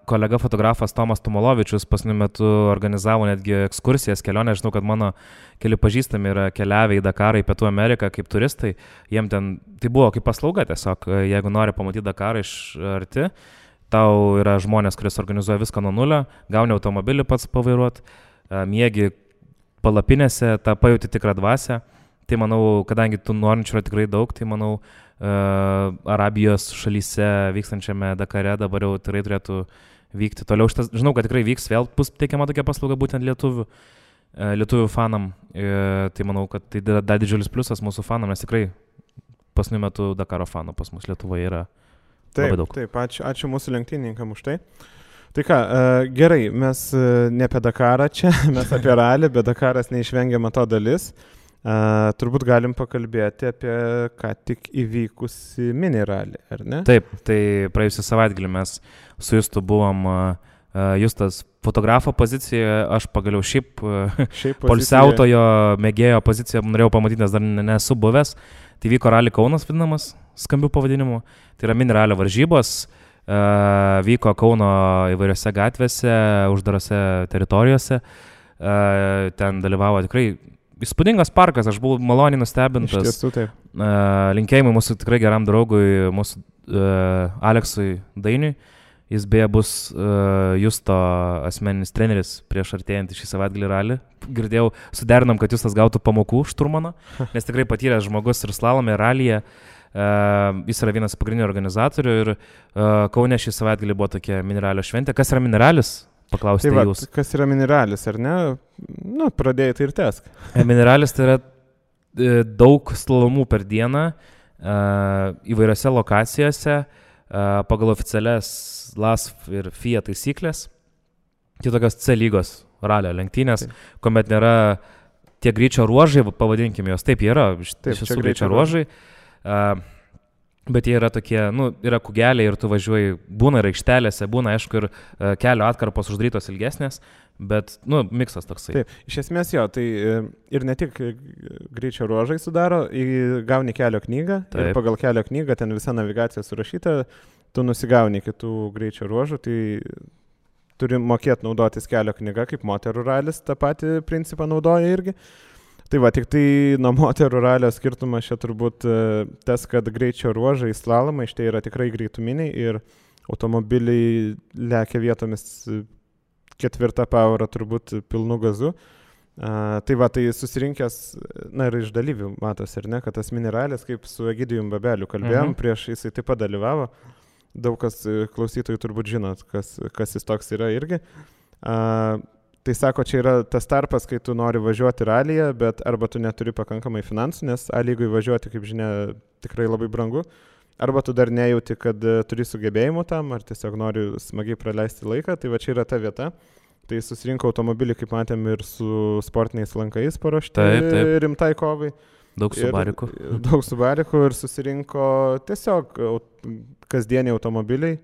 kolega fotografas Tomas Tumolovičius pasniu metu organizavo netgi ekskursijas, kelionę. Žinau, kad mano keli pažįstami yra keliavę į Dakarą, į Pietų Ameriką kaip turistai. Jiem ten, tai buvo kaip paslauga tiesiog, jeigu nori pamatyti Dakarą iš arti, tau yra žmonės, kuris organizuoja viską nuo nulio, gauni automobilį pats pavairuot, miegi palapinėse, tą pajauti tikrą dvasią. Tai manau, kadangi tų norinčių yra tikrai daug, tai manau, Arabijos šalyse vykstančiame Dakare dabar jau tikrai turėtų vykti toliau. Žinau, kad tikrai vyks, vėl bus teikiama tokia paslauga būtent lietuvių fanam. Tai manau, kad tai dar didžiulis pliusas mūsų fanam, nes tikrai pasniu metu Dakaro fanų pas mus Lietuvoje yra labai daug. Taip, ačiū mūsų lenktynininkam už tai. Tai ką, gerai, mes ne apie Dakarą čia, mes apie ralį, bet Dakaras neišvengiama to dalis. Turbūt galim pakalbėti apie ką tik įvykusi mini ralį, ar ne? Taip, tai praėjusią savaitgalį mes su Justu buvom, Justas fotografo pozicijoje, aš pagaliau šiaip poilsiautojo mėgėjo poziciją norėjau pamatyti, nes dar nesu buvęs. Tai vyko ralį Kaunas vadinamas, skambių pavadinimu. Tai yra mini ralio varžybos. Vyko Kauno įvairiose gatvėse, uždarose teritorijose. Ten dalyvavo tikrai įspūdingas parkas, aš buvau maloniai nustebintas. Iš tiesų, taip. Linkėjimai mūsų tikrai geram draugui, mūsų Aleksui Dainiui. Jis beje bus Justo asmeninis treneris prieš artėjant šį savaitgalį ralį. Girdėjau, suderinom, kad Justas gautų pamokų šturmano, nes tikrai patyręs žmogus ir slalome, ir ralyje. Jis yra vienas pagrindinių organizatorių ir Kaune šį savaitgalį buvo tokia miniralio šventė. Kas yra miniralis? Paklausite jūs. Kas yra miniralis, ar ne? Nu, pradėjai tai ir tesk. Miniralis tai yra daug slalomų per dieną įvairiose lokacijose pagal oficialias LASF ir FIA taisyklės. Tai tokios C lygos ralio lenktynės, kuomet nėra tie greičio ruožai, pavadinkime jos. Taip, jie yra iš tiesų greičio ruožai. Bet jie yra tokie, yra kugeliai ir tu važiuoji, būna ir aikštelėse, būna aišku ir kelio atkarpos uždarytos ilgesnės, bet, miksas toksai. Taip, iš esmės jo, tai ir ne tik greičio ruožai sudaro, gauni kelio knygą. Taip. Ir pagal kelio knygą ten visa navigacija surašyta, tu nusigauni kitų greičio ruožų, tai turi mokėti naudotis kelio knyga, kaip moterų ralis, tą patį principą naudoja irgi. Tai va, tik tai nuo moterų ralio skirtumas čia turbūt tas, kad greičio ruožai slalomai šitai yra tikrai greituminiai ir automobiliai lekia vietomis 4 pavarą turbūt pilnu gazu. Tai va, tai susirinkęs, ir iš dalyvių matos, ar ne, kad tas mini ralis, kaip su Egidijum Babeliu kalbėjom, prieš jisai taip pat dalyvavo. Daug kas klausytojų turbūt žinot, kas jis toks yra irgi. Tai sako, čia yra tas tarpas, kai tu nori važiuoti ralyje, bet arba tu neturi pakankamai finansų, nes A lygui važiuoti, kaip žinia, tikrai labai brangu, arba tu dar nejauti, kad turi sugebėjimų tam, ar tiesiog nori smagiai praleisti laiką, tai va čia yra ta vieta. Tai susirinko automobilį, kaip matėm, ir su sportiniais lankais paruošti rimtai kovai. Daug subarikų. Daug subarikų ir susirinko tiesiog kasdieniai automobiliai,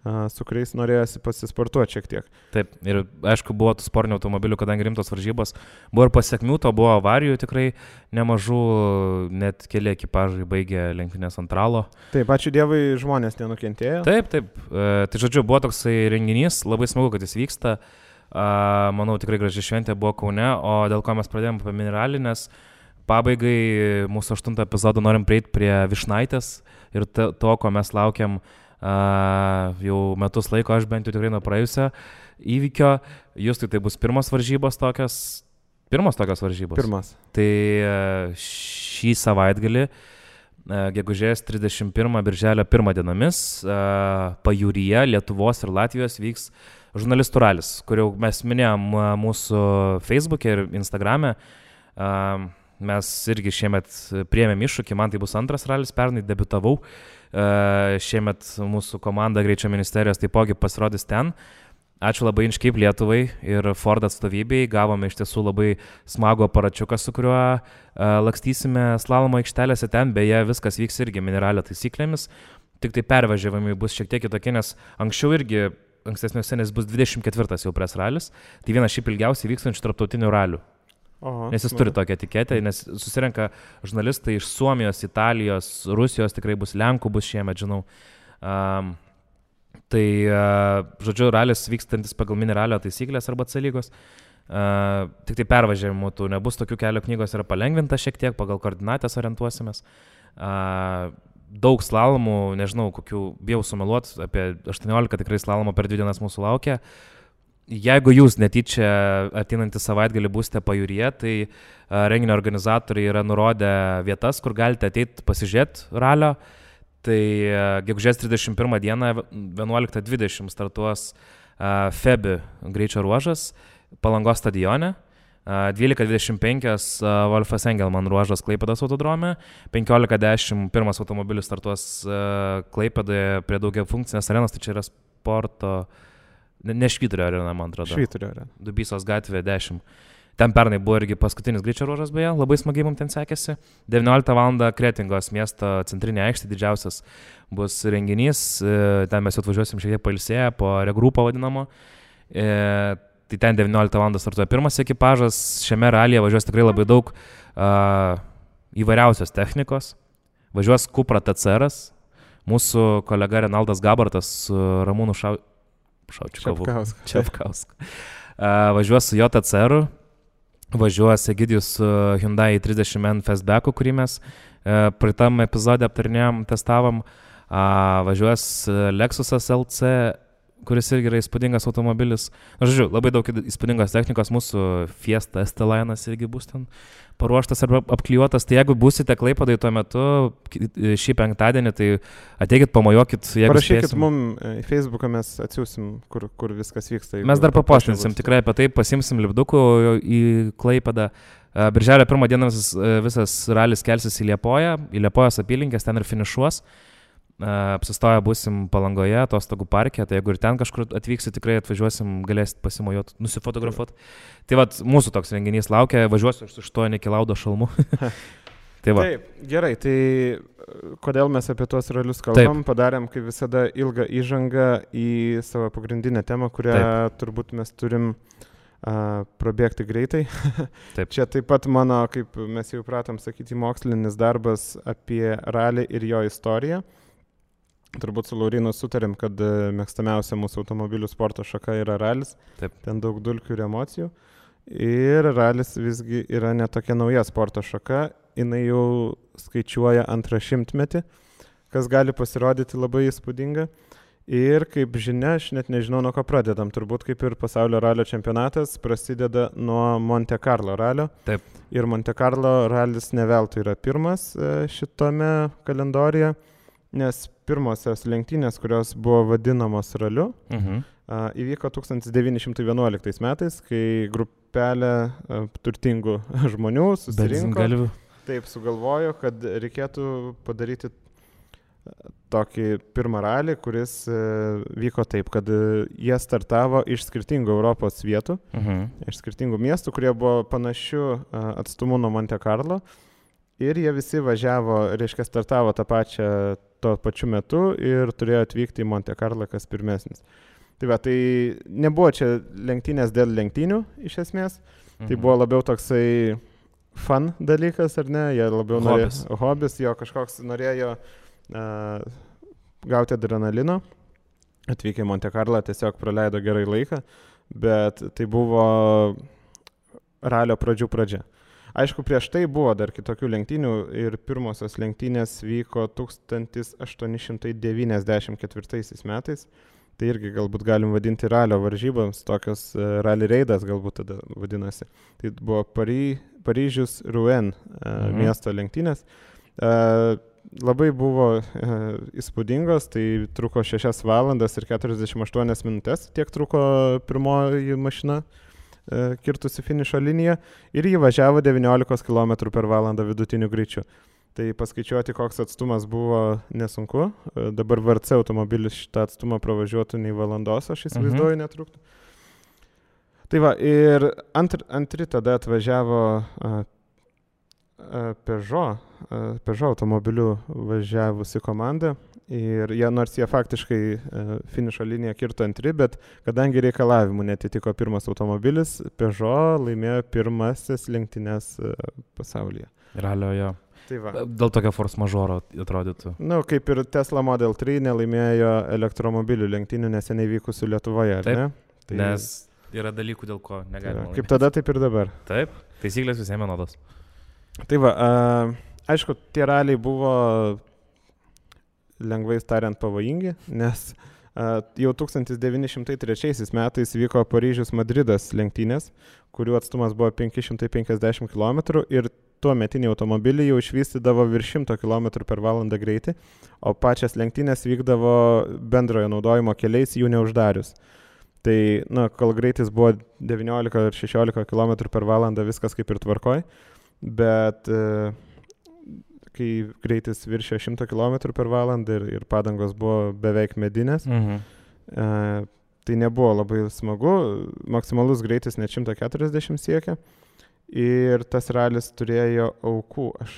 su kuriais norėjosi pasisportuoti šiek tiek. Taip, ir aišku, buvo tų sportinių automobilių, kadangi rimtos varžybos. Buvo ir pasiekmių, to buvo avarijų tikrai nemažų, net keli ekipažai baigė lenktynės ant ralo. Taip, ačiū Dievui, žmonės nenukentėjo. Taip. Tai žodžiu, buvo toksai renginys, labai smagu, kad jis vyksta. Manau, tikrai graži šventė buvo Kaune, o dėl ko mes pradėjome apie miniralį, nes pabaigai mūsų 8 epizodą norim prieiti prie Vyšnaitės ir to, ko mes laukiam jau metus laiko, aš bent jau tikrai nuo praėjusio įvykio. Justui tai bus pirmos tokios varžybos. Pirmas. Tai šį savaitgalį, gegužės 31 birželio 1 dienomis, pajūryje Lietuvos ir Latvijos vyks žurnalistų ralis, kuriuo mes minėjom mūsų Facebook'e ir Instagram'e. Mes irgi šiemet priėmėm iššūkį, man tai bus antras ralis, pernai debiutavau. Šiemet mūsų komanda Greičio ministerijos taipogi pasirodys ten. Ačiū labai Inškeip Lietuvai ir Ford atstovybei. Gavome iš tiesų labai smagų aparačiuką, su kuriuo lakstysime slalomo aikštelėse ten. Beje, viskas vyks irgi miniralio taisyklėmis. Tik tai pervažiavimai bus šiek tiek kitokie, nes anksčiau irgi ankstesniuose, nes bus 24 jau pres ralis. Tai vienas šiaip ilgiausiai vykstančių tarptautinių ralių. Nes jis turi tokią etiketę, nes susirenka žurnalistai iš Suomijos, Italijos, Rusijos, tikrai bus Lenkų, bus šiemet, žinau. Tai, žodžiu, ralis vykstantis pagal mini ralio taisyklės arba C lygos. Tik tai pervažiavimų tų nebus, tokių kelio knygos yra palengvinta šiek tiek, pagal koordinatės orientuosimės. Daug slalomų, nežinau, kokių, bijau sumeluot, apie 18 tikrai slalomų per 2 dienas mūsų laukia. Jeigu jūs netyčia ateinantį savaitgalį būsite pajūryje, tai renginio organizatoriai yra nurodę vietas, kur galite ateiti pasižiūrėti ralio. Tai gegužės 31 dieną 11:20 startuos Febi greičio ruožas Palangos stadione, 12:25 Wolfas Engelman ruožas Klaipėdos autodrome, 15:10 pirmas automobilis startuos Klaipėdoje prie daugiafunkcinės arenos, tai čia yra sporto, ne Švyturio arena, man atrodo. Švyturio arena. Dubysos gatvė 10. Ten pernai buvo irgi paskutinis greičio ruožas, beje, labai smagiai mums ten sekėsi. 19 val. Kretingos miesto centrinė aikštė, didžiausias bus renginys, ten mes atvažiuosim šiek tiek pailsėję po regrupą vadinamo. Tai ten 19 val. Startuoja pirmas ekipažas, šiame ralyje važiuos tikrai labai daug įvairiausios technikos. Važiuos Cupra TCR-as, mūsų kolega Renaldas Gabartas su Ramūnu Čepkausku. Važiuos su jo TCR-u, važiuos Egidijus su Hyundai 30N Fastbacku, kurį mes praeitam epizode aptarinėjom, testavom. Važiuos Lexusas LC, kuris irgi yra įspūdingas automobilis. Žodžiu, labai daug įspūdingos technikos, mūsų Fiesta ST-Line'as irgi bus ten paruoštas arba apklijuotas. Tai jeigu būsite Klaipėdai tuo metu, šį penktadienį, tai ateikit, pamojuokit. Parašykit mums į Facebooką, mes atsiūsim, kur viskas vyksta. Mes dar papostinsim, tikrai apie tai pasimsim lipdukų į Klaipėdą. Birželio 1 dieną visas ralis kelsis į Liepojos apylinkės, ten ir finišuos. Apsistoję būsim Palangoje, atostogų parke, tai jeigu ir ten kažkur atvyksit, tikrai atvažiuosim, galėsit pasimojuoti, nusifotografuoti. Tai vat, mūsų toks renginys laukia, važiuosiu su 8 kilaudo šalmu. Tai va. Taip, gerai, tai kodėl mes apie tuos ralius kalbam, padarėm kaip visada ilgą įžangą į savo pagrindinę temą, kurią turbūt mes turim prabėgti greitai. Taip. Čia taip pat mano, kaip mes jau pratom sakyti, mokslinis darbas apie ralį ir jo istoriją. Turbūt su Laurinu sutarėm, kad mėgstamiausia mūsų automobilių sporto šaka yra ralis. Taip. Ten daug dulkių ir emocijų. Ir ralis visgi yra netokia nauja sporto šaka. Jinai jau skaičiuoja 200 metį, kas gali pasirodyti labai įspūdinga. Ir kaip žinia, aš net nežinau, nuo ko pradedam. Turbūt kaip ir pasaulio ralio čempionatas prasideda nuo Monte Carlo ralio. Taip. Ir Monte Carlo ralis ne veltui yra pirmas šitame kalendoriuje, nes pirmosios lenktynės, kurios buvo vadinamos raliu, įvyko 1911 metais, kai grupelė turtingų žmonių susirinko. Taip sugalvojo, kad reikėtų padaryti tokį pirmą ralį, kuris vyko taip, kad jie startavo iš skirtingų Europos vietų, iš skirtingų miestų, kurie buvo panašių atstumų nuo Monte Carlo. Ir jie visi važiavo, reiškia, startavo tuo pačiu metu ir turėjo atvykti į Monte Carlo, kas pirmesnis. Tai va, tai nebuvo čia lenktynės dėl lenktynių iš esmės, tai buvo labiau toksai fun dalykas, ar ne, jie labiau norėjo, hobis, jo kažkoks norėjo gauti adrenalino, atvykę į Monte Carlo, tiesiog praleido gerai laiką, bet tai buvo ralio pradžia. Aišku, prieš tai buvo dar kitokių lenktynių ir pirmosios lenktynės vyko 1894 metais. Tai irgi galbūt galim vadinti ralio varžyboms, tokios rally reidas galbūt tada vadinasi. Tai buvo Paryžius Rouen miesto lenktynės. Labai buvo įspūdingos, tai truko 6 valandas ir 48 minutės, tiek truko pirmoji mašina kirtusi finišo liniją ir jį važiavo 19 km per valandą vidutiniu greičiu. Tai paskaičiuoti, koks atstumas buvo nesunku. Dabar VRC automobilis šitą atstumą pravažiuotų nei valandos, aš įsivaizduoju, netruktų. Tai va, ir antri tada atvažiavo Peugeot automobiliu važiavusi komanda ir nors jie faktiškai finišo liniją kirto antri, bet kadangi reikalavimų netitiko pirmas automobilis, Peugeot laimėjo pirmasis lenktynes pasaulyje. Ralio jo. Tai va. Dėl tokio force majeure atrodytų. Kaip ir Tesla Model 3 nelaimėjo elektromobilių lenktynių neseniai vykusių Lietuvoje, ar ne? Tai nes yra dalykų, dėl ko negalima. Kaip tada, taip ir dabar. Taip, taisyklės visiems vienodos. Tai va, aišku, tie raliai buvo lengvai tariant pavojingi, nes jau 1903 metais vyko Paryžius-Madridas lenktynės, kurių atstumas buvo 550 km ir tuo metiniai automobiliai jau išvystydavo virš 100 km/h greitį, o pačias lenktynės vykdavo bendrojo naudojimo keliais jų neuždarius. Tai, kol greitis buvo 19 ar 16 km/h, viskas kaip ir tvarkoj, bet kai greitis viršė 100 km/h ir padangos buvo beveik medinės, tai nebuvo labai smagu, maksimalus greitis net 140 siekia. Ir tas ralis turėjo aukų, aš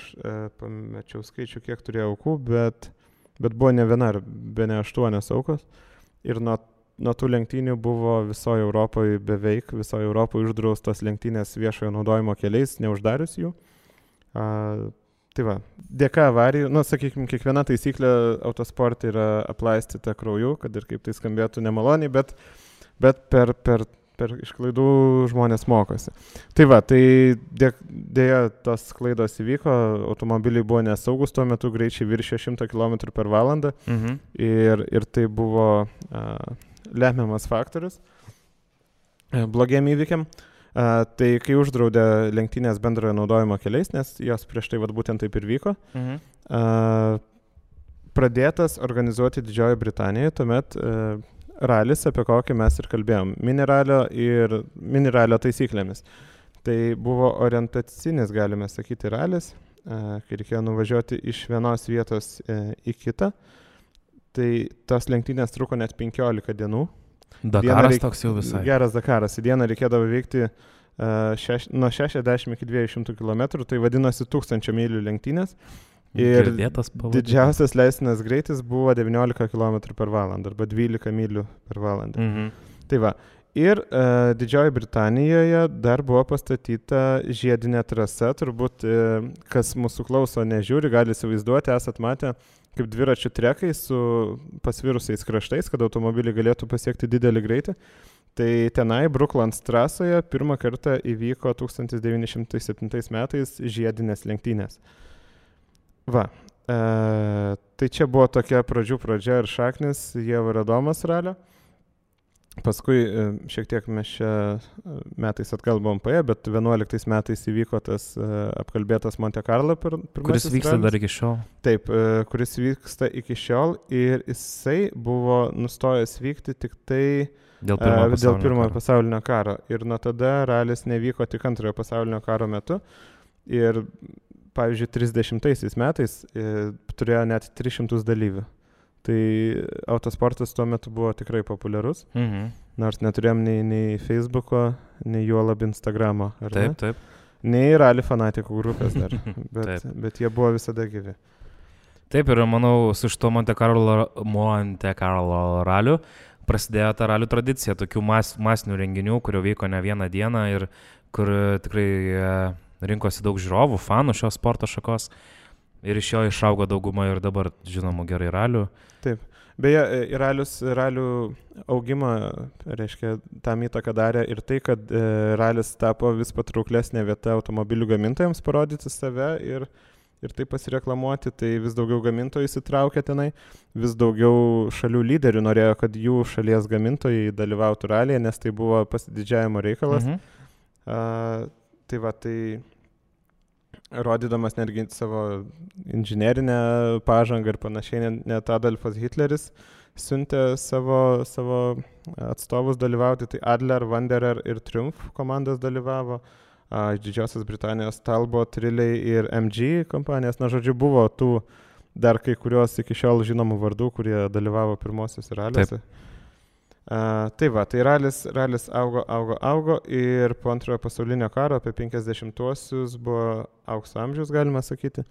pamečiau skaičių, kiek turėjo aukų, bet buvo ne viena, bene 8 aukos. Ir nuo tų lenktynių buvo visoje Europoje, beveik visoje Europoje uždraustos lenktynės viešojo naudojimo keliais, neuždarius jų. Tai va, dėka avarijų, sakykime, kiekviena taisyklė autosporte yra aplaistyta krauju, kad ir kaip tai skambėtų nemaloniai, bet per iš klaidų žmonės mokosi. Tai va, tai dėja tos klaidos įvyko, automobiliai buvo nesaugus, tuo metu greičiai viršė 100 km/h ir tai buvo lemiamas faktorius blogiem įvykiam. Tai kai uždraudė lenktynės bendrojo naudojimo keliais, nes jos prieš tai būtent taip ir vyko, pradėtas organizuoti Didžiojoje Britanijoje, tuomet ralis, apie kokį mes ir kalbėjom, miniralio taisyklėmis. Tai buvo orientacinis, galime sakyti, ralis, kai reikėjo nuvažiuoti iš vienos vietos į kitą. Tai tos lenktynės truko net 15 dienų. Dakaras toks jau visai. Geras Dakaras. Į dieną reikėdavo veikti nuo 60 iki 200 km, tai vadinosi 1000 mylių lenktynės. Ir didžiausias leistinas greitis buvo 19 km/h arba 12 mylių per valandą. Tai va. Ir Didžiojoje Britanijoje dar buvo pastatyta žiedinė trasa, turbūt kas mūsų klauso nežiūri, gali įsivaizduoti, esat matę kaip dviračių trekai su pasvirusiais kraštais, kad automobiliai galėtų pasiekti didelį greitį. Tai tenai Brooklands trasoje pirmą kartą įvyko 1907 metais žiedinės lenktynės. Va, tai čia buvo tokia pradžia ir šaknis Ieva ir Adomas ralio. Paskui šiek tiek mes čia metais atgal buvom paėję, bet 11 metais įvyko tas apkalbėtas Monte Carlo pirmasis kuris vyksta ralis. Dar iki šiol. Taip, kuris vyksta iki šiol ir jisai buvo nustojęs vykti tik tai dėl pirmojo pasaulinio karo. Ir nuo tada ralis nevyko tik antrojo pasaulinio karo metu. Ir pavyzdžiui, 30 metais turėjo net 300 dalyvių. Tai autosportas tuo metu buvo tikrai populiarus, nors neturėjom nei Facebooko, nei juolab Instagramo. Taip. Nei rally fanatikų grupės dar, bet jie buvo visada gyvi. Taip, ir manau, su šito Monte Carlo raliu prasidėjo ta ralių tradicija, tokių masinių renginių, kurio vyko ne vieną dieną ir kur tikrai rinkosi daug žiūrovų, fanų šios sporto šakos ir iš jo išaugo dauguma ir dabar žinomų gerai ralių. Taip. Beje, ralių augimą, reiškia, tam įtaką darė ir tai, kad ralis tapo vis patrauklesnė vieta automobilių gamintojams parodyti save ir taip pasireklamuoti, tai vis daugiau gamintojų įsitraukė tenai, vis daugiau šalių lyderių norėjo, kad jų šalies gamintojai dalyvautų ralyje, nes tai buvo pasididžiavimo reikalas. Tai va, tai rodydamas netgi savo inžinerinę pažangą ir panašiai, net Adolfas Hitleris siuntė savo atstovus dalyvauti, tai Adler, Wanderer ir Triumph komandos dalyvavo, iš Didžiosios Britanijos Talbot, Riley ir MG kompanijas, žodžiu, buvo tų dar kai kurios iki šiol žinomų vardų, kurie dalyvavo pirmosios raliuose. Tai va, tai ralis augo ir po antrojo pasaulinio karo apie 50-uosius buvo aukso amžius, galima sakyti.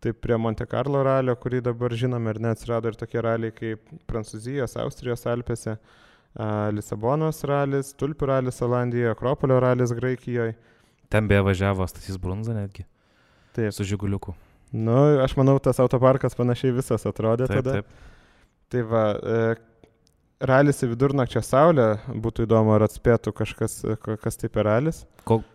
Taip prie Monte Carlo ralio, kurį dabar žinome ir neatsirado ir tokie raliai kaip Prancūzijos, Austrijos Alpėse, Lisabonos ralis, Tulpių ralis Olandijoje, Akropolio ralis Graikijoje. Ten beje važiavo Stasys Brunza netgi. Taip. Su Žiguliuku. Nu, aš manau, tas autoparkas panašiai visas atrodė tada. Taip. Tai va, ralis į vidurnakčio saulę, būtų įdomu, ar atspėtų kažkas, kas tai per ralis.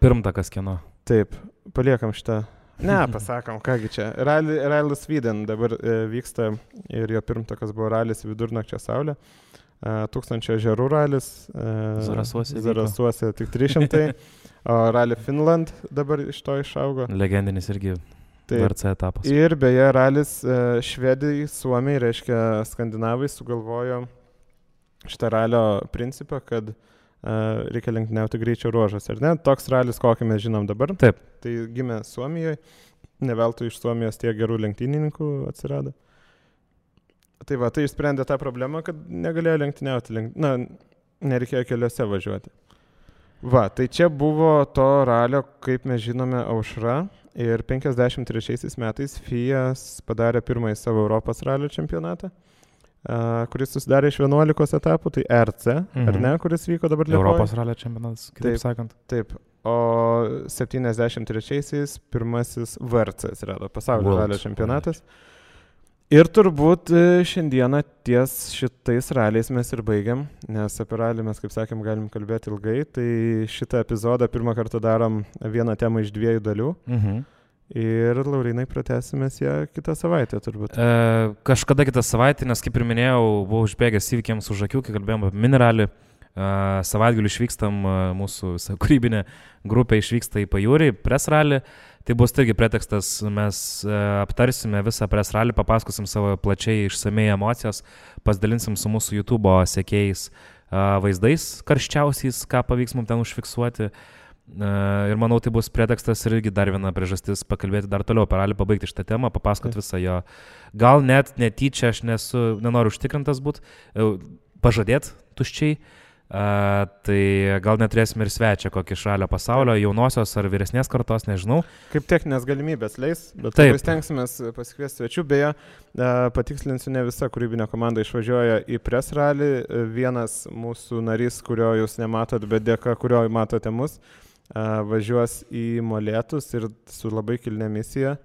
Pirmtakas kieno? Taip, paliekam šitą. Ne, pasakom, kągi čia. Ralis Sweden dabar vyksta ir jo pirmtakas buvo ralis į vidurnakčio saulę. 1000 ežerų ralis. Zarasuose tik 300. O rali Finland dabar iš to išaugo. Legendinis irgi VRC etapas. Ir beje, ralis Švedijai, Suomijai, reiškia skandinavai, sugalvojo šitą ralio principą, kad reikia lenktyniauti greičio ruožas, ar ne? Toks ralis, kokį mes žinom dabar. Taip. Tai gimė Suomijoje, ne veltui iš Suomijos tiek gerų lenktynininkų atsirado. Tai va, tai išsprendė tą problemą, kad negalėjo lenktyniauti, nereikėjo keliuose važiuoti. Va, tai čia buvo to ralio, kaip mes žinome, aušra. Ir 53 metais FIA padarė pirmąjį savo Europos ralio čempionatą, kuris susidarė iš 11 etapų, tai RC, ar ne, kuris vyko dabar Lietuvoje. Europos ralio čempionatas, kitaip sakant. Taip, o 73-aisiais pirmasis VRC atsirado, pasaulio ralio čempionatas. Ir turbūt šiandieną ties šitais raliais mes ir baigiam, nes apie ralį mes, kaip sakėm, galim kalbėti ilgai, tai šitą epizodą pirmą kartą darom vieną temą iš 2 dalių. Ir, Laurinai, pratęsimės ją kitą savaitę, turbūt. Kažkada kitą savaitę, nes kaip ir minėjau, buvau užbėgęs įvykiams už akių, kai kalbėjom apie mineralį. Savaitgalių išvykstam, mūsų kūrybinė grupė išvyksta į pajūrį, press rally. Tai bus irgi pretekstas, mes aptarsime visą press rally, papasakosim savo plačiai išsamei emocijas, pasidalinsim su mūsų YouTube sekėjais vaizdais karščiausiais, ką pavyks mums ten užfiksuoti. Ir manau, tai bus pretekstas ir irgi dar viena priežastis pakalbėti dar toliau apie rally, pabaigti šitą temą, papasakoti visą jo. Gal net netyčia, aš nenoriu užtikrintas būti, pažadėti tuščiai. Tai gal neturėsime ir svečią kokį iš ralio pasaulio, jaunosios ar vyresnės kartos, nežinau. Kaip techninės galimybės leis, bet stengsimės pasikviesti svečių. Beje, patikslinsiu, ne visa kūrybinė komanda išvažiuoja į press rally. Vienas mūsų narys, kurio jūs nematot, bet dėka kurio matote mus, važiuos į Molėtus ir su labai kilnia misija.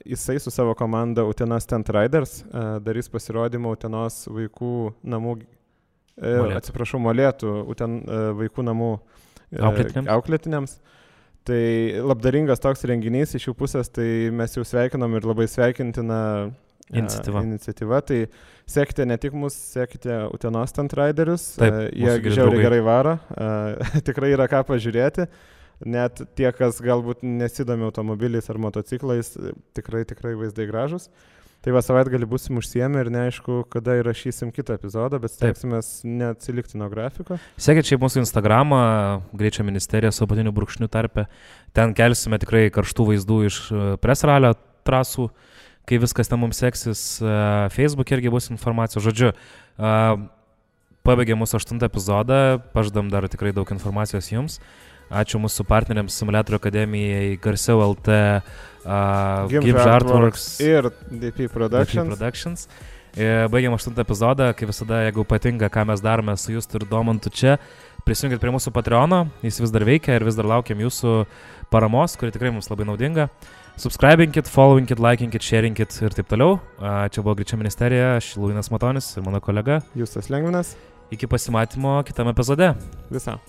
Jisai su savo komanda Utenos Tent Riders darys pasirodymą Utenos vaikų namų Molėtų vaikų namų auklėtiniams. Tai labdaringas toks renginys iš jų pusės, tai mes jau sveikinom ir labai sveikintina iniciatyva. Tai sekite ne tik mus, sekite Utenos Tent Riderius, jie žiauriai gerai varo, tikrai yra ką pažiūrėti. Net tie, kas galbūt nesidomi automobiliais ar motociklais, tikrai vaizdai gražus. Tai va, savaitgalį būsim užsiėmę ir neaišku, kada įrašysim kitą epizodą, bet stengsimės neatsilikti nuo grafiko. Sekit šiaip mūsų Instagramą, Greičio ministerija su apatiniu brūkšniu tarpe. Ten kelsime tikrai karštų vaizdų iš press ralio trasų, kai viskas ten mums seksis. Facebook irgi bus informacijos. Žodžiu, pabaigė mūsų 8 epizodą, pažadam dar tikrai daug informacijos jums. Ačiū mūsų partneriams Simulatorių akademijai, Garsiau LT, Gibbs Artworks ir DP Productions. Baigiam 8 epizodą, kaip visada, jeigu patinka, ką mes darome su Justu ir Domantu čia, prisijungit prie mūsų Patreono, jis vis dar veikia ir vis dar laukiam jūsų paramos, kuri tikrai mums labai naudinga. Subscribinkit, followinkit, likinkit, sharingit ir taip toliau. Čia buvo Greičio ministerija, aš Laurynas Matonis ir mano kolega Justas Lengvinas. Iki pasimatymo kitame epizode. Visą.